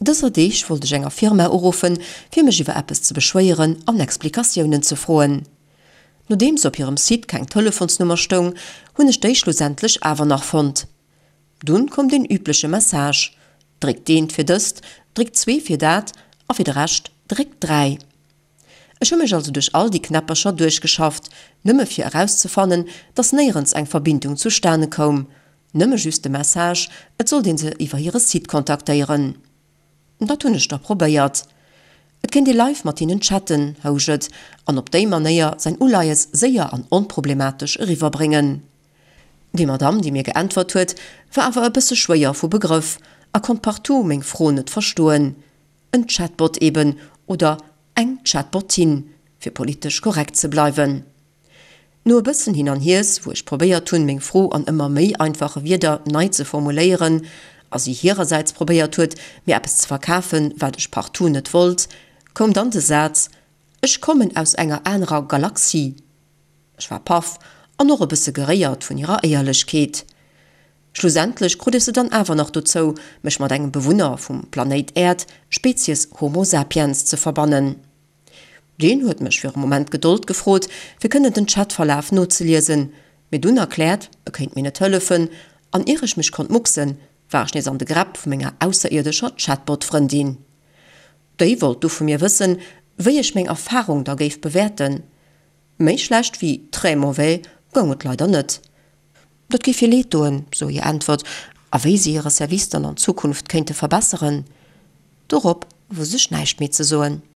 Dëser Deeg wollt ech enger Firma uruffen, fir mech iwwer eppes ze beschwéieren an Explikatiounen ze froen. Nodeems op hirem Site keng Telefonsnummer stoung, hunn ech déi schlussendlech awer nach fonnt. Dunn koum deen übleche Message, Dréckt eent fir dëst, dréckt zwee fir dat a fir de Rescht dréckt 3. Ech hu mech also duerch all déi Knäppercher duerchgeschafft, nëmme fir erauszefannen, dass néierens eng Verbindung zustane koum, nëmme just de Message, et sollt een se iwwer hire Site kontaktéieren. Dat hunn ech da probéiert. Et kéint ee live mat hinnen chatten, housch et, an op déi Manéier säin Uleies séier an onproblematesch eriwwerbréngen. Déi Madamm, déi mir geäntwert huet, war awer e bësse schwéier vu Begrëff a konnt partout meng Fro net verstoen. En Chatbot eben, oder eng Chatbotin, fir politesch korrekt ze bleiwen. No e bëssen Hin an Hiers, wou ech probéiert hunn, meng Fro an ëmmer méi einfache Wierder nei ze formuléieren, a si hirersäits probéiert huet, mir eppes ze verkafen, wat ech partout net wollt, koum dann de Saz, Ech kommen aus enger anerer Galaxie. Ech war paff an och e bësse geréiert vun hirer Éierlechkeet. Schlussendlech krut ech se dann awer nach dozou, mech mat engem Bewunner vum Planéit Äerd, Spezies Homo sapiens, ze verbannen. Deen huet mech fir e Moment Gedold gefrot, fir kënnen den Chatverlaf nozeliesen, mir dunn erkläert, e kéint mir net hëllefen, an ier ech mech konnt mucksen, war ech nees an de Gräpp vu menger ausserierdescher Chatbot-Frëndin. Déi wollt du vu mir wëssen, wéi ech meng Erfarung da géif bewäerten. Méi schlecht wéi très mauvais goung et leider net. Dat géif hir leed doen, sou hir Äntwert, a wéi si hire Service dann an Zukunft kéinte verbesseren, dorop wousst ech näischt méi ze soen.